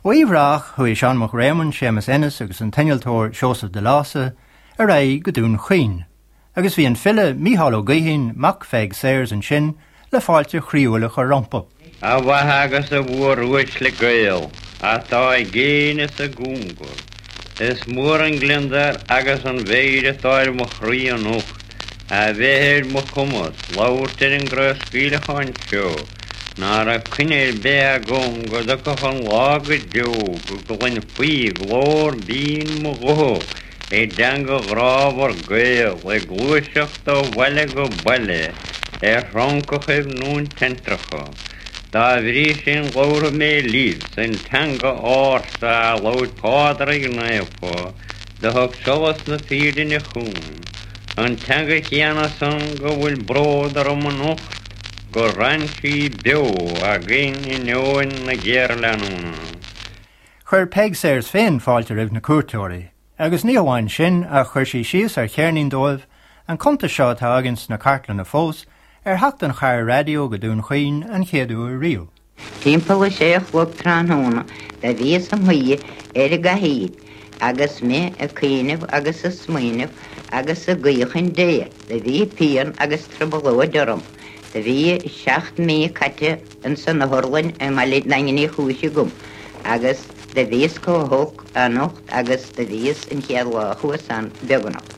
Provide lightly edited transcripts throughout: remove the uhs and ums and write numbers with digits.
Ó Uíbh Ráthach chuaigh Seán Mac Réamoinn, Séamus Ennis agus an t-innealtóir Seosamh de Lása ar aghaidh go Dún Chaoin, agus bhí an file Mícheál Ó Gaoithín, mac Pheig Sayers, ansin le fáilte chroíúil a chur rompu. A mhaithe agus a mhóruaisle Gael atá i gcéin is i gcóngar, is mór an gliondar agus an mheidhir atá ar mo chroí anocht a bheith ar mo chumas labhairt ar an gcraobhscaoileachán seo ná raibh coinne ar bith agam go dtiocfadh an lá go deo go gcluinfí glór binn mo ghutha i dteanga ghrámhar Gael ag gluaiseacht ó bhaile go baile ar throncachaibh na teinntreacha. Dá bhrí sin labharfaidh mé libh san teanga ársa a labhair Pádraig Naofa do thug solas na fírinne chugainn, an teanga chéanna san go bhfuil bród orm anocht gur fhan sí beo againn in inneoin na géarleanúna. Chuir Peig Sayers féin fáilte roimh na cuairteoirí, agus ní hamháin sin ach chuir sí síos ar cheirnín dóibh, an cuntas seo atá againn sna cartlanna fós, ar theacht an chairr raidió go Dún Chaoin an chéad uair riamh. Timpeall a sé a chlog tráthnóna do bhíos im shuí ar an gcathaoir agus mé ag cuimhneamh agus ag smaoineamh agus ag guí chun Dé. Do bhí pian agus trioblóid orm. Do bhí seacht mí caite ins an otharlann i mBaile Daingin Uí Chúis agam agus do bhíos chomh holc anocht agus do bhíos an chéad lá a chuas ann, beagnach.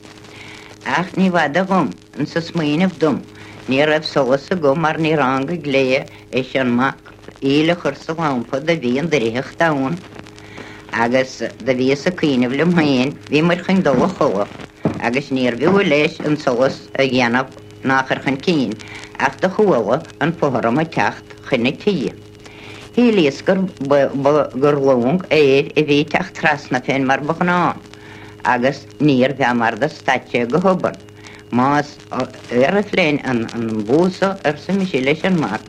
Ach ní bhfada dhom insa smaoineamh dom, ní raibh solas agam mar ní ránga glao leis an mac íle a chur sa lampa do bhí an doircheacht ann agus do bhíos ag cuimhneamh liom féin, bhíomair chun dul a chodladh agus níorbh fhiú leis an solas a dhéanamh ná a chur chun cinn, ach do chuala an fothram ag teacht chun na tighe. Shílíos gur gur long aeir a bhí ag teacht trasna fén mar ba ghnáth, agus níorbh ea mar do stad sé go hobann. Más aeroplane an bús so, arsa mise leis an mac,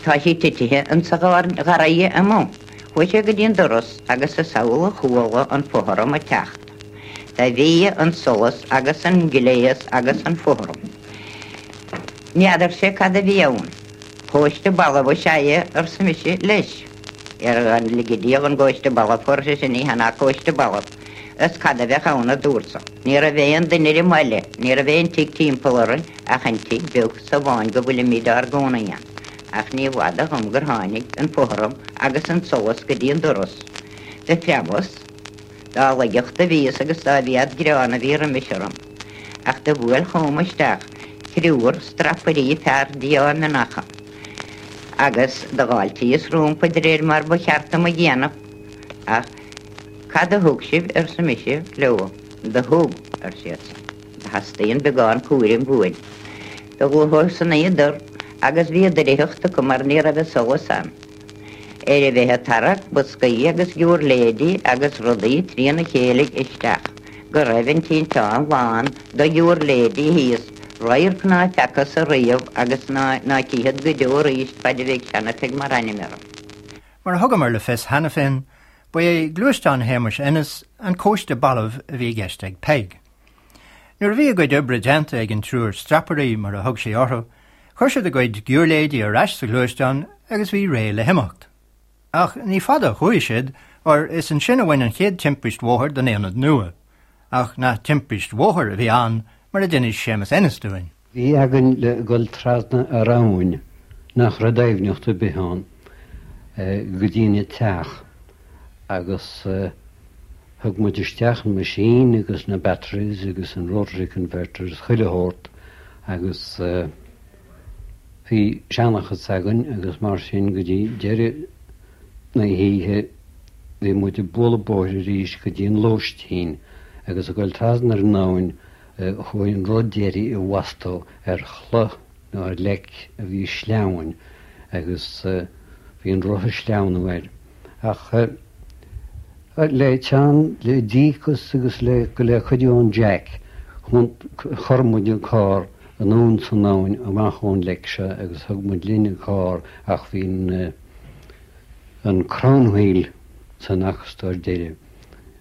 tá sí titithe insa gharraidhe amuigh. Chuaigh sé go dtí an doras agus is amhlaidh a chuala an fothram ag teacht. Do bhí an solas agus an gléas agus an fothram. N'fheadarsa cad a bhí ann. Cóiste balbh is ea é, arsa mise leis. Ar lige Dia dhon gcóiste balbh, ar seisean, ní hea ná cóiste balbh. Is cad a bheadh ann, a dúrtsa. Ní raibh aon duine ar an mbaile, ní raibh aon tigh timpeall orainn ach an tigh beag so amháin go bhfuilimid ár gcónaí ann. Ach ní bhfada dhom gur tháinig an fothram agus an solas go dtí an doras. Do phreabas. Dá laigeacht a bhíos agus dá mhéad greann a bhí roimis orm. Ach do bhuail chugam isteach triúr strapairí fear díomhaoineacha, agus do dh'fháiltíos rómpa de réir mar ba cheart dom a dhéanamh. Ach cad a thug sibh, arsa mise leo. Do thug, ar siadsan. Do theastaíonn beagán cúraim uainn. Do ghluaiseadar agus bhí doircheacht acu mar ní raibh an solas ann. Ar a bheith ag tarrac boscaí agus giúirléidí agus rudaí trína chéile isteach, go raibh an tinteán lán de ghiúirléidí thíos, radharc ná feacthas ariamh agus ná cífead go deo arís faid a bheidh Seana-Pheig mar ainm orm. Mar a thugamar le fios cheana féin, ba é gluaisteán Shéamuis Ennis an cóiste balbh a bhí i gceist ag Peig. Nuair a bhí a gcuid oibre déanta ag an triúr strapairí, mar a thug sí orthu, chuir siad a gcuid giúirléidí ar ais sa ghluaisteán agus bhí réidh le himeacht. Ach ní fada a chuaigh siad, óir is ansin a bhain an chéad timpist bhóthair don aonad nua. Ach nach timpist bhóthair a bhí ann, mar a d'inis Séamus Ennis dúinn. Bhí againn le dhul trasna ar abhainn nach raibh doimhneacht ar bith ann go dtína teach agus thug muid isteach an machine agus na batteries agus an rotary converters chuile shórt agus bhí seanchas againn agus mar sin go dtí deireadh na hoíche bhí muid ag bualadh bóthair arís go dtí an lóistín agus ag dul trasna ar an abhainn Chuaigh an rud deiridh i bhfostú ar chloch nó ar leic a bhí sleamhain agus bhí an roth ag sleamhnú air. Ach le teann, le díocas agus le le cuidiú ón Jack, chuir muid an carr anonn san abhainn amach ón leic seo agus thug muid linn an carr ach bhí an an crown wheel san acastóir deiridh,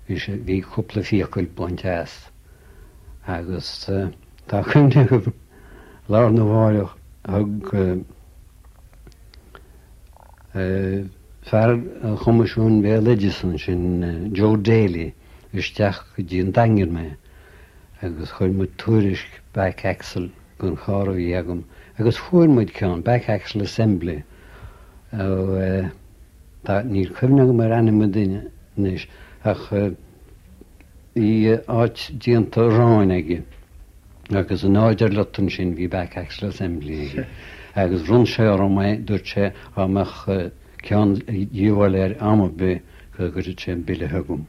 bhí sé, bhí cúpla fiacail bainte as. Agus tá cuimhne agam lá arna mháireach thug. fear an Choimisiúin Bhéaloideasa ansin, Joe Daly, isteach go dtí an Daingean mé agus chuir muid tuairisc back axle don charr a bhí agam agus fuair muid ceann, back axle assembly, ó tá, níl cuimhne agam ar ainm an duine anois ach bhí áit déanta aráin aige agus in áit ar lot ansin bhí back axle assembly aige agus bhronn sé orm é, dúirt sé dá mbeadh ceann de dhíobháil air am ar bith go gcuirfeadh sé an bille chugam.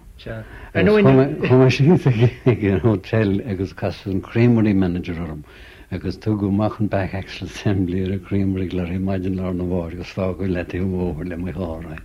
Agus chuaigh mé síos ag an hotel agus casadh an creamery manager orm agus tugadh amach an back axle assembly ar an creamery glairy maidin lá arna mhárach agus fágadh i leataobh an bhóthair le mo charr é.